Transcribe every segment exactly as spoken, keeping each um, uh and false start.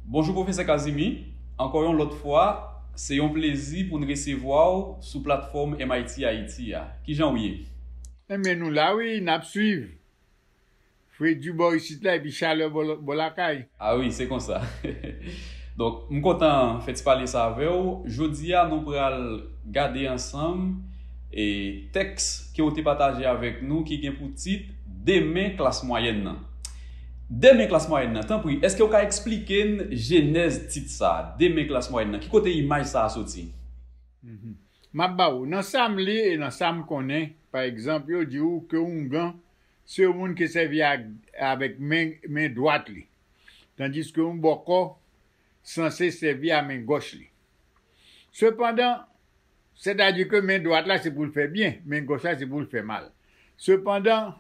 Bonjou, Pwofesè Kazimi. Ankò yon lòt fwa, se yon plezi pou n resevwa w sou platfòm M I T Haiti a. Kijan w ye? Ebyen, nou la wi, n ap swiv. Fredi bò isit la, epi chalè bò, bò lakay. A wi, se konsa. Donk, m kontan fè ti pale sa avè w. Jodi a, nou pral gade ansanm e tèks ke w te pataje avèk nou ki gen pou tit Demen klas mwayèn nan. Demen klas mwayèn nan, tanpri, èske w ka eksplike n jenèz tit sa a, Demen klas mwayèn nan? Ki kote imaj sa a soti? Mhm. M ap ba w, nan sa m li e nan sa m konnen, pa egzanp, yo di w ke oungan se yon moun ki sèvi ak, avèk men, men dwat li, tandiske yon bòkò sanse sèvi a men gòch li. Sepandan, sètadi ke men dwat la se pou l fè byen, men gòch la se pou l fè mal. Sepandan,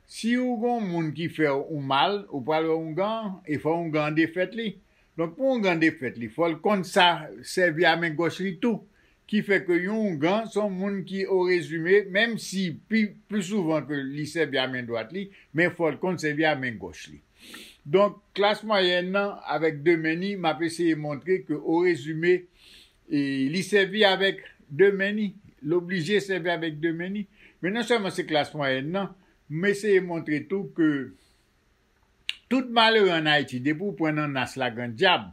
si ou gon moun ki fè ou mal, ou pral wè oungan an, e fò oungan an defèt li. Donk, pou oungan defèt li, fò l konn sa sèvi a men gòch li tou. Ki fè ke yon oungan se yon moun ki, o rezime, menm si pi, pli souvan ke li sèvi a men dwat li, men fò l konn sèvi a men gòch li. Donk, klas mwayèn nan, avèk demen ni, m ap eseye montre ke, o rezime, e, li sèvi avèk demen ni, l oblije sèvi avèk demen ni. Men non sèlman se klas mwayèn nan, m eseye montre tou ke tout malere ann Ayiti, depi w pran nan nas la grandyab,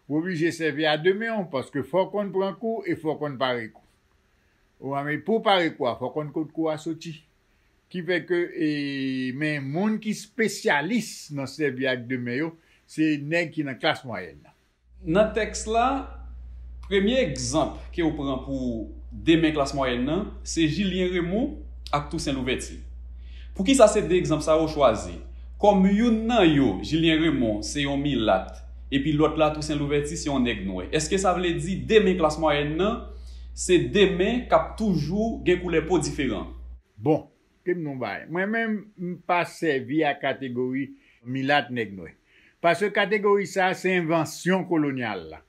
w oblije sèvi a demen w, paske fò w konn pran kou e fò w konn pare kou. Ou a, men pou w pare kou a, fò w konn kot kou a soti. Ki fè ke, e, men moun ki espesyalis nan sèvi ak demen yo, se nèg ki nan klas mwayèn nan. Nan tèks la, premye egzanp ke w pran pou demen klas mwayèn nan, se Julien Raymond ak Toussaint Louverture. Poukisa se de egzanp sa yo w chwazi? Kòm youn nan yo, Julien Raymond, se yon milat, epi lòt la, Toussaint Louverture, se yon nèg nwè. Èske sa vle di demen klas mwayèn nan, se demen k ap toujou gen koulè po diferan? Bon, ke m di w yon bagay. Mwen menm, m pa sèvi ak kategori milat, nèg nwè. Paske kategori sa a, se envansyon kolonyal la.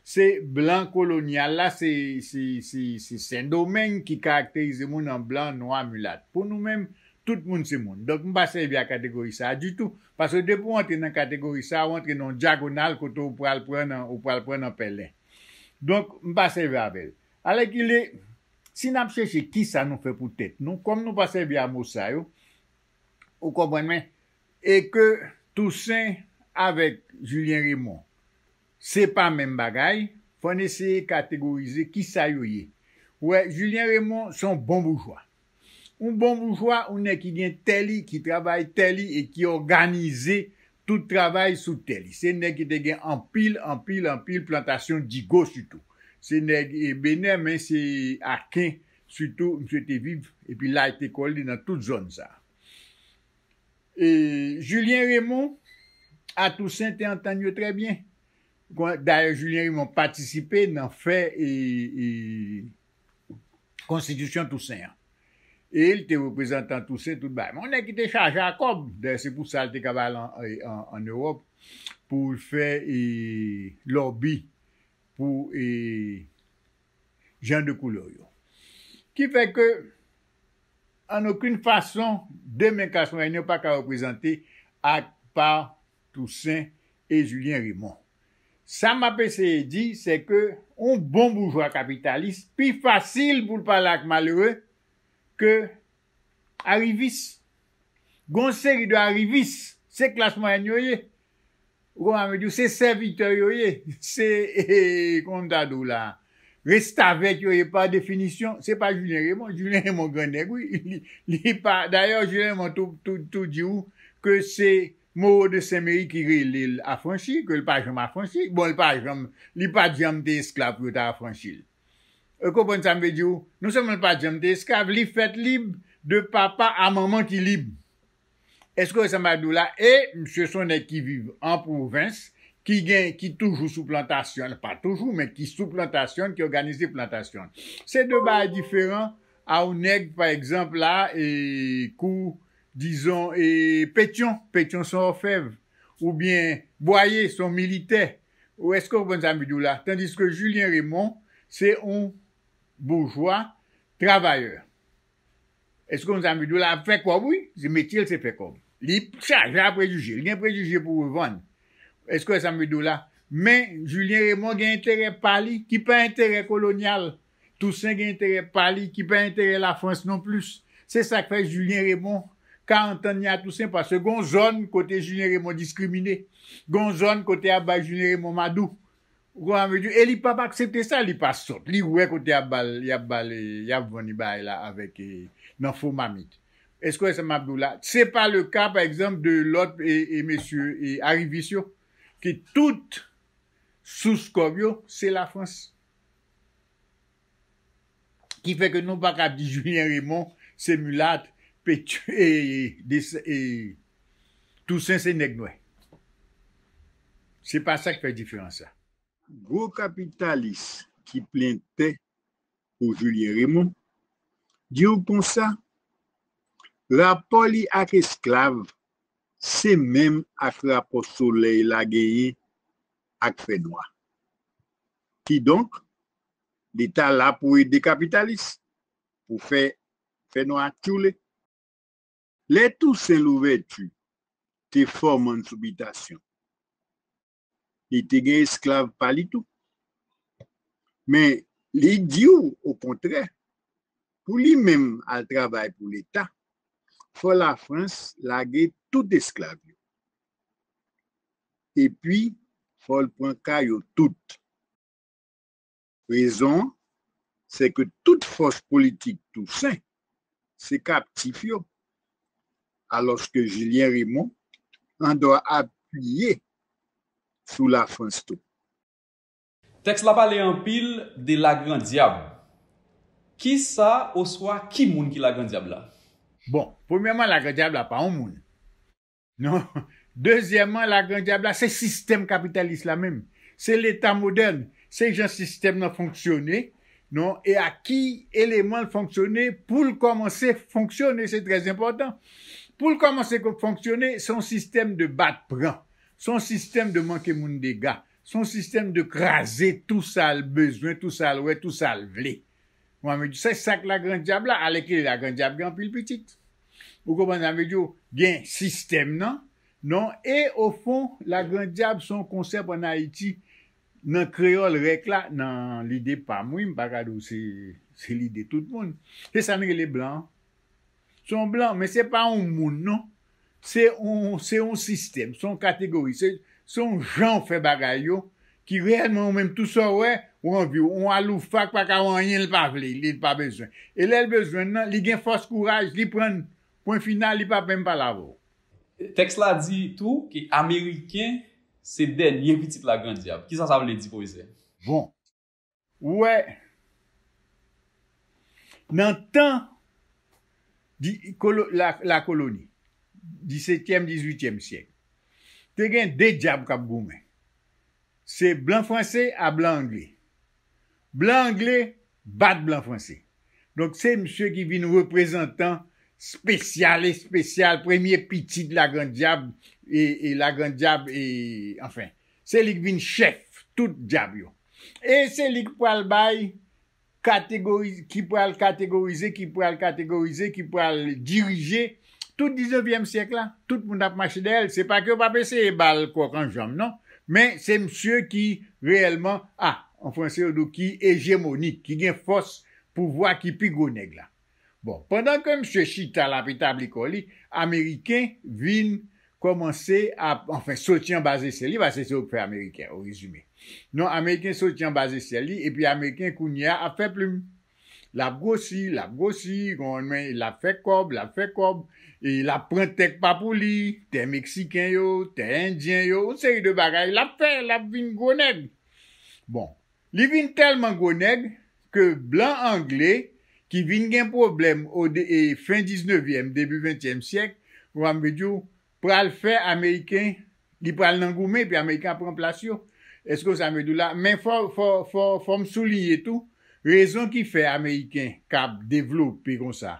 Se blan kolonyal la, se, se, se, se Sendomeng ki karakterize moun an blan, nwa, milat. Pou nou menm, tout moun se moun. Donk, m pa sèvi ak kategori sa a ditou. Paske depi w antre nan kategori sa a, w antre nan yon dyagonal kote w pral pran nan, w pral pran nan pèlen. Donk, m pa sèvi avè l. Alèkile, si n ap chèche kisa nou fè pou tèt nou, kòm nou pa sèvi a mo sa yo, ou konprann mwen, e ke Toussaint avèk Julien Raymond, se pa menm bagay, fò n eseye kategorize kisa yo ye. Ou wè, Julien Raymond se yon bon boujwa. Yon bon boujwa, yon nèg ki gen tè li, ki travay tè li e ki òganize tout travay sou tè li. Se nèg ki te gen anpil, anpil, anpil plantasyon digo sitou. Se nèg, e, Benè, men se Aken sitou, misye te viv, epi la te kò li nan tout zòn sa. E Julien Raymond a Toussaint te antann yo trè byen. Dayè, Julien Raymond patisipe nan fè, e, e, konstitisyon Toussaint an. E l te reprezantan Toussaint tout bagay. Men yon nèg ki te chaje a kòb. Dayè, se pou sa l te ka al an, an, an Ewòp pou l fè, e, lòbi pou, e, jan de koulè yo. Ki fè ke, an okenn fason, demen klas mwayèn yo pa ka reprezante ak pa Toussaint e Julien Raymond. Sa m ap eseye di, se ke yon bon boujwa kapitalis pi fasil pou l pale ak malere ke arivis. Gon seri de arivis, se klas mwayèn yo ye. Ou konprann, m di w, se sèvitè yo ye. Se, e, kòman m ta di w la? Restavèk yo ye pa definisyon. Se pa Julien Raymond. Julien Raymond gran nèg, wi. Li, li pa, dayè, Julien Raymond tou, tou, tou di w ke se Moreau de Saint-Méry ki rele l afranchi, ke l pa janm afranchi. Bon, l pa janm, li pa t janm te esklav pou yo ta afranchi l. Ou konprann sa m vle di w? Non sèlman l pa t janm te esklav, li fèt lib de papa a manman ki lib. Èske w wè sa m ap di w la? E misye se yon nèg ki viv an pwovens, ki gen, ki toujou sou plantasyon, pa toujou, men ki sou plantasyon, ki òganize plantasyon. Se de bagay diferan a yon nèg, pa egzanp, la, e, kou, dizon, e, Petyon, Petyon se yon òfèv, oubyen Bwaye se yon militè. Ou èske w konprann sa m vle di w la? Tandiske Julien Raymond se yon boujwa travayè. Èske w konn sa m vle di w la? Ap fè kòb, wi. Se metye l, se fè kòb. Li chaje a prejije. Li gen prejije pou revann. Èske w wè sa m vle di w la? Men, Julien Raymond gen enterè pa li, ki pa enterè kolonyal. Toussaint gen enterè pa li, ki pa enterè Lafrans non plis. Se sa k fè Julien Raymond, karant an ni a Toussaint, paske gon zòn kote Julien Raymond diskrimine. Gon zòn kote y ap bay Julien Raymond madou. Ou konprann sa m vle di? E li p ap aksepte sa, li pa sòt. Li wè kote y ap ba l, y ap ba l, y ap vann li bagay la avèk, e, nan fo mamit. Èske w wè sa m ap di w la? Se pa le ka, pa egzanp, de lòt, e, e mesye, e arivis yo, ki tout sous kòb yo, se Lafrans. Ki fè ke nou pa ka di Julien Raymond se milat, Pétu-, e, de, e, Toussaint se nèg nwè. Se pa sa k fè diferans la. Gwo kapitalis ki plen tè pou Julien Raymond, di w konsa, rapò li ak esklav se menm ak rapò solèy la genyen ak fènwa. Kidonk, Leta la pou ede kapitalis, pou fè fènwa tchoule. Lè Toussaint Louverture te fòmann sou bitasyon, li te gen esklav pa li tou. Men, li di w, okontrè, pou li menm al travay pou Leta, fò Lafrans lage tout esklav yo. Epi, fò l pran ka yo tout. Rezon an, se ke tout fòs politik Toussaint se kaptif yo, alòske Julien Raymond an dwa apiye sou Lafrans tou. Tèks la pale anpil de Lagrandyab. Kisa oswa ki moun ki Lagrandyab la? Bon, premyèman, Lagrandyab la pa yon moun. Non. Dezyèmman, Lagrandyab la, se sistèm kapitalis la menm. Se Leta modèn. Se jan sistèm nan fonksyone, non, e a ki eleman l fonksyone pou l kòmanse fonksyone, se trè enpòtan. Pou l kòmanse ko-, fonksyone, se yon sistèm de bat pran. Se yon sistèm de manke moun dega. Se yon sistèm de kraze tou sa l bezwen, tou sa l wè, tou sa l vle. Mwen, mwen di, se sa k Lagrandyab la, alèkile Lagrandyab gen anpil pitit. Ou konprann sa m vle di w? Gen sistèm nan, non, e ofon, Lagrandyab se yon konsèp ann Ayiti, nan kreyòl rèk la, nan lide pa m, wi, m pa ka di w se, se lide tout moun. Se sa n rele blan an. Se yon blan, men se pa yon moun, non. Se yon, se yon sistèm, se yon kategori, se, se yon jan w fè bagay yo, ki reyèlman ou menm tou sa w wè, ou anvi w, yon aloufak pa ka wè anyen l pa vle, li pa bezwen. E lè l bezwen l nan, li gen fòs kouraj, li pran l, pwen final, li p ap menm pale avè w. Tèks la di tou ke Ameriken se dènye pitit Lagrandyab. Kisa sa vle di, pwofesè? Bon, ou wè, nan tan di, kolo-, la, lakoloni, disetyèm, dizuityèm syèk, te gen de dyab k ap goumen. Se blan franse a blan angle. Blan angle bat blan franse. Donk, se misye ki vin reprezantan espesyal, espesyal, premye pitit Lagrandyab, e, e Lagrandyab, e, anfen, se li k vin chèf tout dyab yo. E se li k pral bay kategori-, ki pral kategorize, ki pral kategorize, ki pral dirije tout diznevyèm syèk la. Tout moun ap mache dèyè l. Se pa ke yo p ap eseye ba l kòk an janm, non. Men se misye ki reyèlman, a, an franse yo di w ki ejemonik, ki gen fòs pouvwa, ki pi gwo nèg la. Bon, pandan ke misye chita l ap etabli kò li, Ameriken vin kòmanse ap, anfen, soti anba zesyèl li, paske se yo k fè Ameriken, o rezime. Non, Ameriken soti anba zesyèl li, epi Ameriken kounye a ap fè plim. L ap gwosi, l ap gwosi, konprann mwen, l ap fè kòb, l ap fè kòb, e l ap pran tè k pa pou li, tè Meksiken yo, tè Endyen yo, yon seri de bagay, l ap fè, l ap vin gwo nèg. Bon, li vin tèlman gwo nèg ke blan angle ki vin gen pwoblèm o de-, e fen diznevyèm, debi ventyèm syèk, ou konprann m vle di w, pral fè Ameriken, li pral nan goumen, epi Ameriken ap pran plas yo. Èske w sa m vle di w la? Men fò, fò, fò, fò m souliye tou, rezon ki fè Ameriken k ap devlope konsa,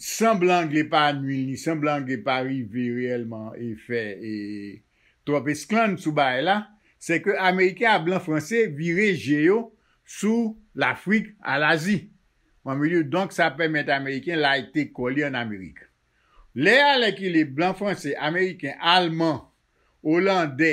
san blan angle pa nui l, ni san blan angle pa rive reyèlman e fè, e, twòp esklann sou bagay la, se ke Ameriken ak blan franse vire je yo sou Lafrik, a Lazi. Mwen, m vle di w, donk, sa pèmèt Ameriken lite kò li ann Amerik. Lè alèkile blan franse, Ameriken, Alman, Olandè,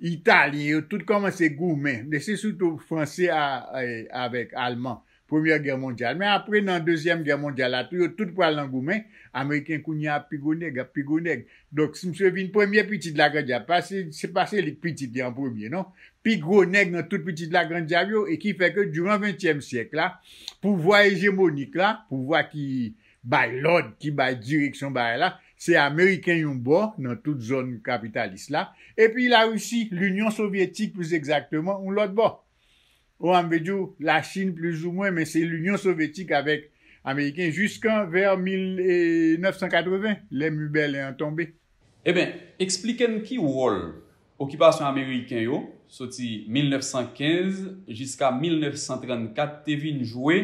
Italyen, yo tout kòmanse goumen. Men se sitou Franse a, a, avèk Alman, Premyè Gè mondyal. Men apre, nan Dezyèm Gè mondyal la tou, yo tout pral nan goumen. Ameriken kounye a ap pi gwo nèg, ap pi gwo nèg. Donk, si misye vin premye pitit Lagrandyab, pa se, se pa se li k pitit li an premye, non. Pi gwo nèg nan tout pitit Lagrandyab yo, e ki fè ke diran ventyèm syèk la, pouvwa ejemonik la, pouvwa ki bay lòd, ki bay direksyon bagay la, se Ameriken yon bò nan tout zòn kapitalis la, epi Larisi, Linyon Sovyetik plis egzakteman, yon lòt bò. Ou an vle di w, Lachin plizoumwen, men se Linyon Sovyetik avèk Ameriken jiskan vè mil nèf san katreven, lè mi Bèlen an tonbe. Eben, eksplike n ki wòl okipasyon ameriken yo, soti mil nèf san kenz jiska mil nèf san trannkat, te vin jwe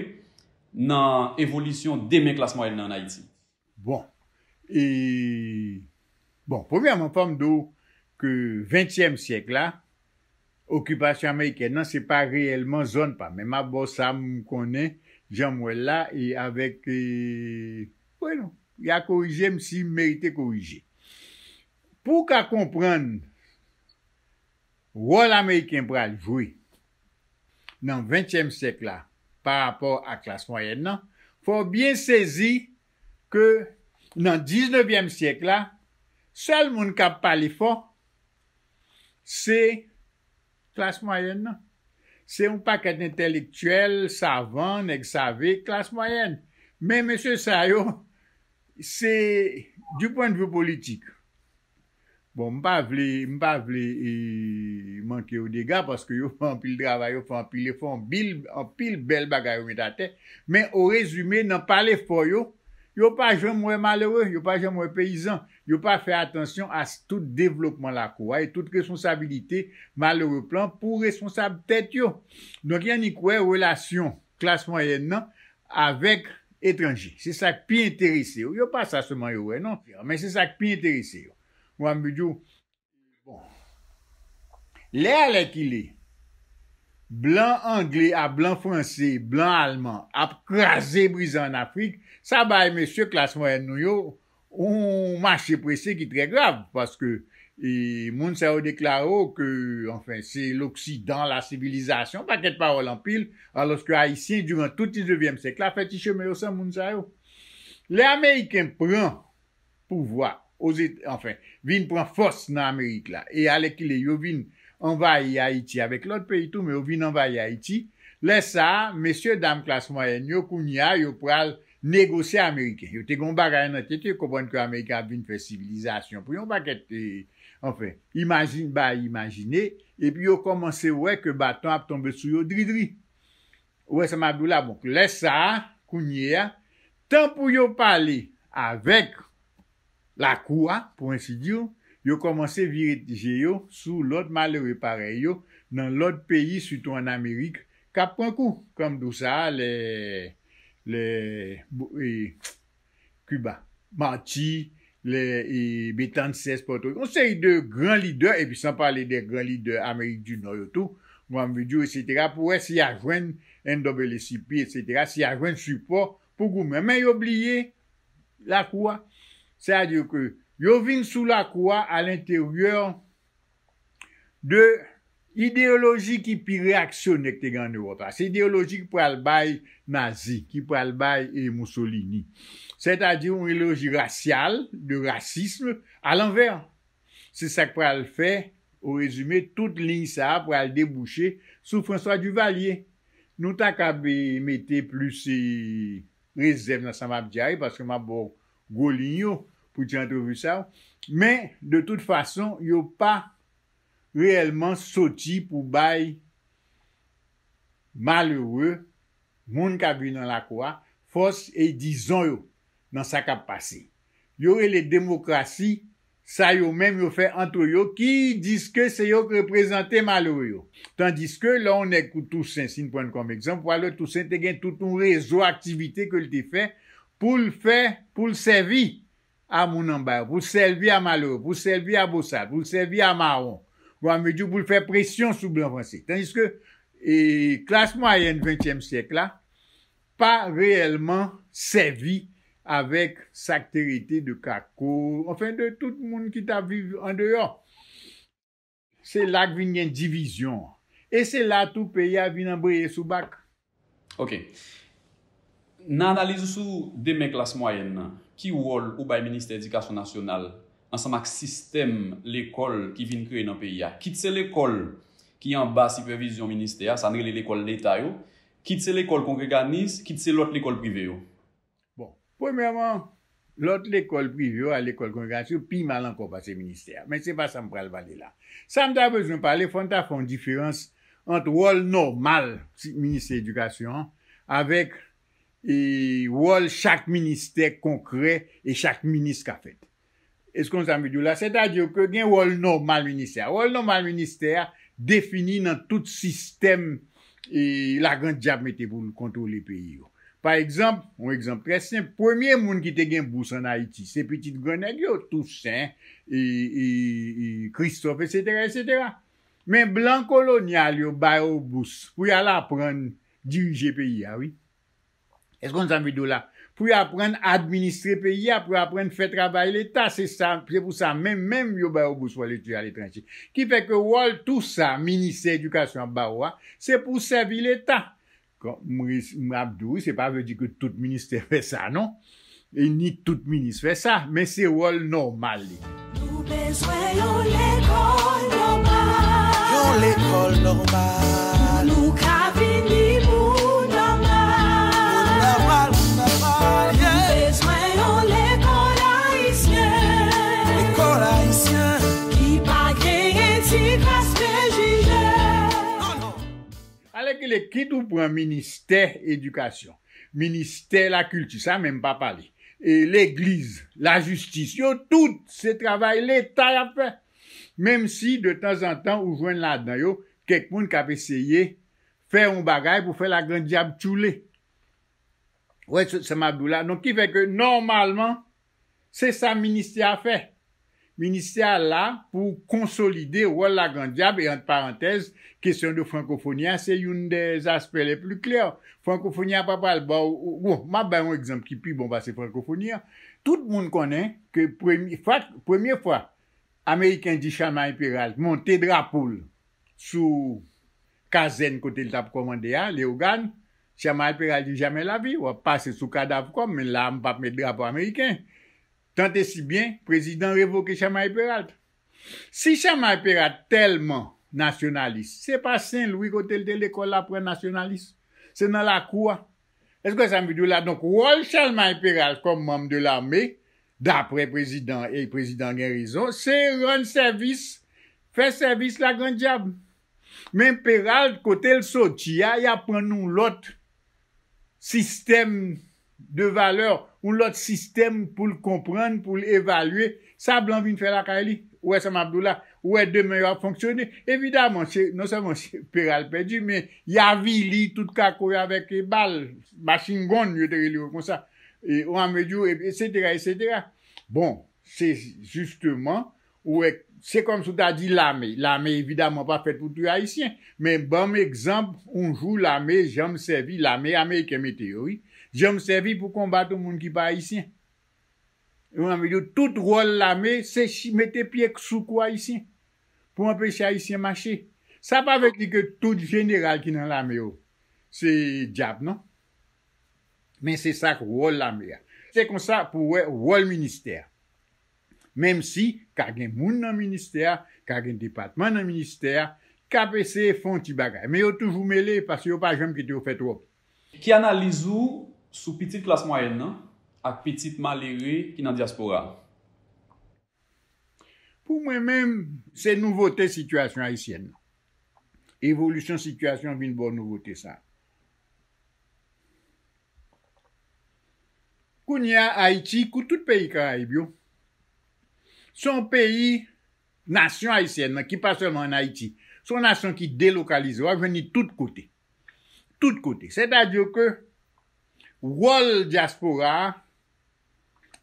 nan evolisyon demen klas mwayèn nan ann Ayiti? Bon, e, bon, premyèman, fò m di w ke ventyèm syèk la, okipasyon amerikèn nan, se pa reyèlman zòn pa m. Men m ap ba w sa m konnen, jan m wè l la, e avèk, e, wi non, y a korije m si m merite korije. Pou w ka konprann wòl Ameriken pral jwe nan ventyèm syèk la pa rapò a klas mwayèn nan, fò w byen sezi ke nan diznevyèm syèk la, sèl moun k ap pale fò, se klas mwayèn nan. Se yon pakèt entèlektyèl, savan, nèg save, klas mwayèn. Men mesye sa yo, se, du point de vue politik, bon, m pa vle, m pa vle e, manke yo dega, paske yo fè anpil travay, yo fè anpil efò, anpil, anpil bèl bagay yo met atè. Men o rezime, nan pale fò yo, yo pa janm wè malere, yo pa janm wè peyizan, yo pa fè atansyon a s- tout devlopman lakou a e tout responsabilite malere pran pou responsab tèt yo. Donk, y annik wè relasyon klas mwayèn nan avèk etranje. Se sa k pi enterese yo. Yo pa sa sèlman yo wè, non, men se sa k pi enterese yo. Ou an vle di w, bon, lè alèkile, blan angle a blan franse, blan alman ap kraze brize ann Afrik, sa bay mesye klas mwayèn nou yo yon mache prese ki trè grav, paske e, moun sa yo deklare w ke, anfen, se loksidan, la sivilizasyon, pakèt pawòl anpil, alòske Ayisyen, diran tout diznevyèm syèk la, fè ti chemen yo san moun sa yo. Lè Ameriken pran pouvwa, Ozet- anfen, vin pran fòs nan Amerik la, e alèkile yo vin anvayi Ayiti avèk lòt peyi tou, men yo vin anvayi Ayiti, lè sa a, mesye dam klas mwayèn yo, kounye a, yo pral negosye Ameriken. Yo te gen yon bagay nan tèt yo, yo konprann ke Ameriken ap vin fè sivilizasyon pou yon pakèt, e, anfen, imajin, bay imajine, epi yo kòmanse wè ke baton ap tonbe sou yo dridri. Ou wè sa m ap di w la? Bon, lè sa a, kounye a, tan pou yo pale avèk lakou a, pou ensi di, yo kòmanse vire je yo sou lòt malere parèy yo nan lòt peyi, sitou ann Amerik, k ap pran kou. Kòm di w sa a, lè, lè, bo- e, Kiba, Marti, lè e, Betances, Pòtoriko, yon seri de gran lidè, epi san pale de gran lidè Amerik di Nò yo tou, Granville, etsetera, pou wè si y a jwenn N double A C P, etsetera, si y a jwenn sipò pou goumen. Men yo bliye lakou a. Sètadi ke yo vin sou lakou a alenteryè de ideyoloji ki pi reyaksyonè ki te gen ann Ewòp la. Se ideyoloji ki pral bay Nazi, ki pral bay e, Mussolini. Sètadi yon ideyoloji rasyal, de rasism, alanvè. Se sa k pral fè, o rezime, tout liy sa a pral debouche sou François Duvalier. Nou ta kab e, mete plis e, rezèv nan sa m ap di a wi, paske m ap ba w gwo liy yo pou ti antrevi sa yo. Men, de tout fason, yo pa reyèlman soti pou bay malere, moun k ap viv nan lakou a, fòs e dizon yo nan sa k ap pase. Yo rele demokrasi sa yo menm yo fè ant yo ki di ke se yo k reprezante malere yo. Tandiske lè yon nèg kou Tousen, si n pran l kòm egzanp, w a wè Tousen te gen tout yon rezo aktivite ke l te fè pou l fè, pou l sèvi a moun anba yo, pou l sèvi a malere, pou l sèvi a bosal, pou l sèvi a mawon, ou an vle di pou l fè presyon sou blan franse. Tandiske e, klas mwayèn ventyèm syèk la pa reyèlman sèvi avèk sa k te rete de kako, anfen, de tout moun ki t ap viv andeyò. Se la k vin gen divizyon an. E se la tou peyi a vin anbreye sou bak. Ok. Nan analiz ou sou demen klas mwayèn nan, ki wòl ou bay Ministè Edikasyon Nasyonal ansanm ak sistèm lekòl ki vin kreye nan peyi a? Kit se lekòl ki anba sipèvizyon ministè a, sa n rele lekòl leta yo, kit se lekòl kongreganis, kit se lòt lekòl prive yo. Bon, premyèman, lòt lekòl prive yo a lekòl kongreganis yo pi mal ankò pase ministè a. Men se pa sa m pral pale la. Sa m ta bezwen pale, fò n ta fè yon diferans ant wòl nòmal Ministè Edikasyon an avèk e wòl chak ministè konkrè e chak minis ka fèt. Èske w konn sa m vle di w la? Sètadi ke gen wòl nòmal ministè a. Wòl nòmal ministè a defini nan tout sistèm e Lagrandyab mete pou l kontwole peyi yo. Pa egzanp, yon egzanp trè senp, premye moun ki te gen bous ann Ayiti, se pitit grannèg yo, Tousen, e, e, e Kristòf, etsetera, etsetera. Men blan kolonyal yo ba yo bous pou y al aprann dirije peyi a, wi. Èske w konn sa m vle di w la? Pou y aprann administre peyi a, pou y aprann fè travay leta, se sa, se pou sa menm, menm yo ba yo bous pou al etidye aletranje. Ki fè ke wòl tou sa, ministè edikasyon ap ba ou a, se pou sèvi leta. Kòm m ap di w, se pa vle di ke tout ministè fè sa, non. E ni tout minis fè sa, men se wòl nòmal li. Nou bezwen yon lekòl nòmal. Yon lekòl nòmal. Pou nou ka vini moun nòmal. Moun nòmal, moun nòmal, yeah. Nou bezwen yon lekòl ayisyen. Lekòl ayisyen. Ki pa genyen ti kras prejije. Alèkile, kit ou pran ministè edikasyon, ministè lakilti, sa menm pa pale, e legliz, lajistis, yo tout se travay leta y ap fè. Menm si detanzantan ou jwenn ladan yo kèk moun k ap eseye fè yon bagay pou fè lagrandyab tchoule. Ou wè sa m ap di w la? Donk ki fè ke nòmalman se sa ministè a fè. Ministè a la pou konsolide wòl lagrandyab e ant parantèz, kesyon de frankofoni a se youn dè aspè le pli klè. Frankofoni a pa pral ba w, bon, m ap bay yon egzanp ki pi bon pase frankofoni a. Tout moun konnen ke premye fwa, premye fwa Ameriken di Charlemagne Péralte monte drapo l sou kazèn kote l t ap kòmande a, Leyogàn, Charlemagne Péralte di, jamè lavi, w ap pase sou kadav kò m, men la a m p ap met drapo ameriken. Tant et si bien, prezidan revoke Charlemagne Péralte. Si Charlemagne Péralte tèlman nasyonalis, se pa Sen Lwi kote l te lekòl la pran nasyonalis. Se nan lakou a. Èske w wè sa m vle di w la? Donk, wòl Charlemagne Péralte kòm manm de lame, daprè prezidan, e prezidan gen rezon, se rann sèvis, fè sèvis lagrandyab. Men Péralte, kote l soti a, y ap pran yon lòt sistèm de valè, yon lòt sistèm pou l konprann, pou l evalye sa blan vin fè lakay li. Ou wè sa m ap di w la? Ou wè demen yo ap fonksyone? Evidaman, se, non sèlman se Péralte pèdi, men y avili tout kako yo avèk bal, machin gonn, yo te rele yo konsa. E, ou a mezi, etsetera, etsetera. Bon, se jisteman, ou wè, se kòmsi w ta di lame. Lame, evidaman, pa fèt pou touye Ayisyen. Men ban m egzanp, yon jou lame janm sèvi, lame ameriken mete yo, wi, janm sèvi pou konbat yon moun ki pa Ayisyen. Ou a mezi, tout wòl lame, se mete pye sou kou Ayisyen pou anpeche Ayisyen mache. Sa pa vle di ke tout jeneral ki nan lame yo se dyab, non. Men se sa k wòl lame a. Se konsa pou w wè wòl ministè a. Menm si ka gen moun nan ministè a, ka gen depatman nan ministè a, k ap eseye fè yon ti bagay. Men yo toujou mele paske yo pa janm kite yo fè twòp. Ki analiz ou sou pitit klas mwayèn nan ak pitit malere ki nan dyaspora a? Pou mwen menm, se nouvote sitiyasyon ayisyèn nan. Evolisyon sitiyasyon vin ba w nouvote sa. Kounye a, Ayiti, kou tout peyi Karayib yo, se yon peyi, nasyon ayisyèn nan, ki pa sèlman ann Ayiti, se yon nasyon ki delokalize, w ap jwenn li tout kote. Tout kote. Sètadi ke wòl dyaspora a,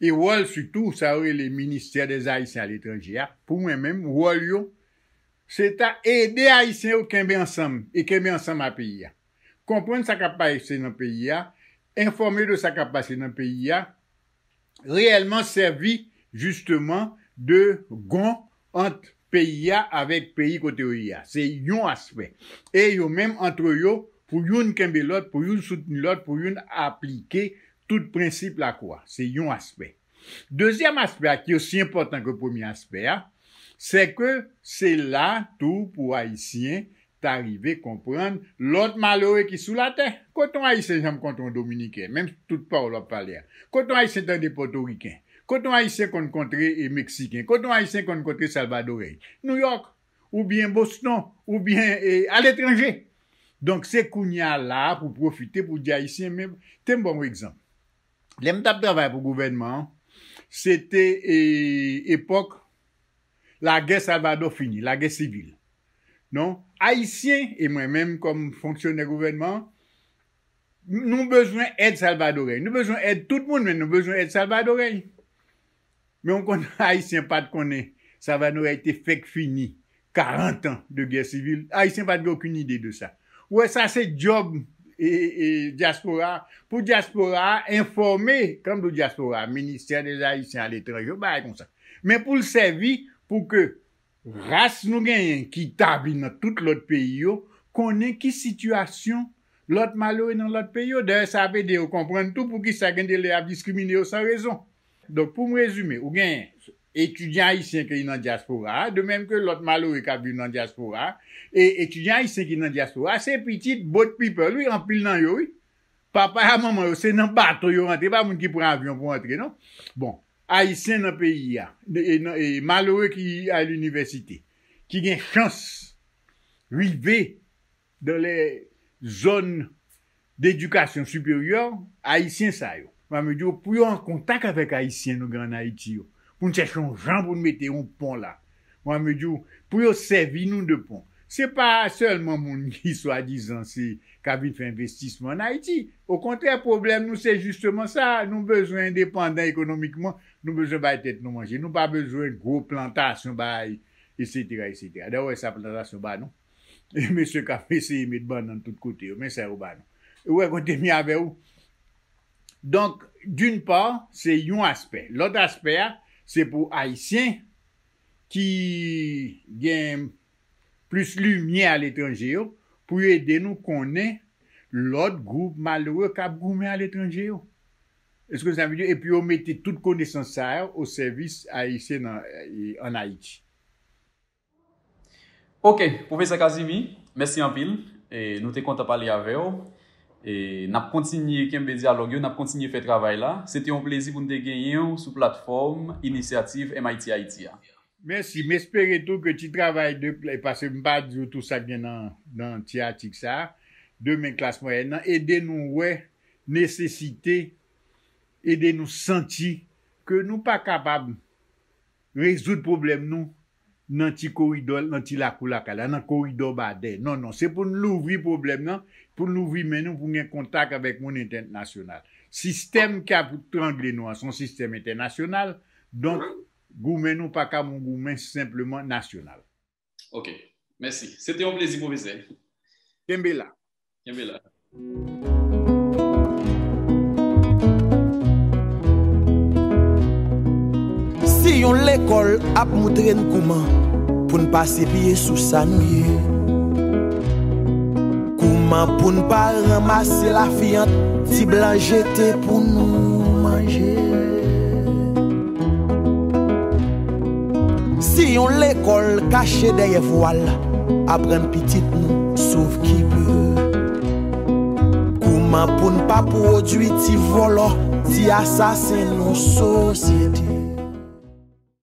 e wòl sitou sa yo rele Ministère des Haïtiens à l'étranger a, pou mwen menm, wòl yo, se ta ede Ayisyen yo kenbe ansanm e kenbe ansanm a peyi a. Konprann sa k ap pase nan peyi a, enfòme de sa k ap pase nan peyi a, reyèlman sèvi jisteman de gon ant peyi a avèk peyi kote yo ye a. Se yon aspè. E yo menm, antre yo, pou youn kenbe lòt, pou youn soutni lòt, pou youn aplike tout prensip lakou a. Se yon aspè. Dezyèm aspè a, ki osi enpòtan ke premye aspè a, se ke se la tou pou Ayisyen ta rive konprann lòt malere ki sou latè. Kote yon Ayisyen janm kontre yon Dominiken, menm tout pawòl w ap pale a? Kote yon Ayisyen tande Pòtoriken? Kote yon Ayisyen konn kontre, e, Meksiken? Kote yon Ayisyen konn kontre Salvadoryen? Nouyòk, oubyen Boston, oubyen, e, aletranje. Donk, se kounye a la a pou pwofite pou di Ayisyen, men, te m ba w yon egzanp. Lè m t ap travay pou gouvènman an, se te, e, epòk lagè Salvadò fini, lagè sivil. Non, Ayisyen, e mwen menm kòm fonksyonè gouvènman an, nou bezwen èd salvadoryen. Nou bezwen èd tout moun, men nou bezwen èd salvadoryen. Men w konn, Ayisyen pa t konnen Salvadoryen te fèk fini karant an de gè sivil. Ayisyen pa t gen okenn ide de sa. Ou wè, sa se djòb, e, e, dyaspora a. Pou dyaspora a enfòme, kan m di w dyaspora a, Ministère des Haïtiens à l'étranger, yon bagay konsa. Men pou l sèvi pou ke ras nou genyen ki tabli nan tout lòt peyi yo, konnen ki sitiyasyon lòt malere nan lòt peyi yo. Dayè, sa ap ede yo konprann tou poukisa gen de lè y ap diskrimine yo san rezon. Donk, pou m rezime, ou genyen etidyan ayisyen ki nan dyaspora a, de menm ke lòt malere k ap viv nan dyaspora a, e etidyan ayisyen ki nan dyaspora a, se pitit boat people, wi, anpil nan yo, wi. Papa a manman yo, se nan bato yo rantre, pa moun ki pran avyon pou antre, non. Bon, Ayisyen nan peyi a, e, e, nan, e malere ki al inivèsite, ki gen chans rive dans les zones d'éducation supérieure, Ayisyen sa yo. Mwen, m di w, pou yo an kontak avèk Ayisyen nou gen ann Ayiti yo, pou n chèche yon jan pou n mete yon pon la. Mwen, m di w, pou yo sèvi nou de pon. Se pa sèlman moun ki swadizan se, k ap vin fè envestisman ann Ayiti. Okontrè, pwoblèm nou se jisteman sa. Nou bezwen endepandan ekonomikman. Nou bezwen bay tèt nou manje. Nou pa bezwen gwo plantasyon bay, etsetera, etsetera. Dayè, w wè sa plantasyon ba nou. E mesye k ap eseye met bannann tout kote yo, men sa yo ba nou. Ou wè kote m ye avè w? Donk, d'une part, se yon aspè. Lòt aspè a, se pou Ayisyen ki gen plis limyè aletranje yo, pou yo ede nou konnen lòt gwoup malere k ap goumen aletranje yo. Èske sa vle di, epi yo mete tout konesans sa yo o sèvis Ayisyen nan, e, ann Ayiti? Ok, Pwofesè Casimir, mèsi anpil. E, nou te kontan pale avè w. E, n ap kontinye kenbe dyalòg yo, n ap kontinye fè travay la. Se te yon plezi pou n te genyen w sou platfòm Inisyativ M I T Haiti a. Mèsi. M espere tou ke ti travay de, paske m pa di w tou sa k gen nan, nan ti atik sa a, demen klas mwayèn nan, ede nou wè nesesite, ede nou santi ke nou pa kapab rezoud pwoblèm nou nan ti koridò, nan ti lakou lakay la, nan koridò badè. Non, non, se pou n louvri pwoblèm nan, pou n louvri men nou, pou n gen kontak avèk moun entènasyonal. Sistèm k ap trangle nou an, se yon sistèm entènasyonal, donk, goumen nou pa ka yon goumen senpleman nasyonal. Ok. Mèsi. Se te yon plezi, pwofesè. Kenbe la. Kenbe la. Si yon lekòl ap moutre n kouman pou n pase pye sou sa nou ye, kouman pou n pa ranmase lafiyant ti blan jete pou nou manje. Si yon lekòl kache dèyè vwal, aprann pitit nou sov ki pe. Kouman pou n pa pwodui ti vòlò, ti asasen nou sosyete?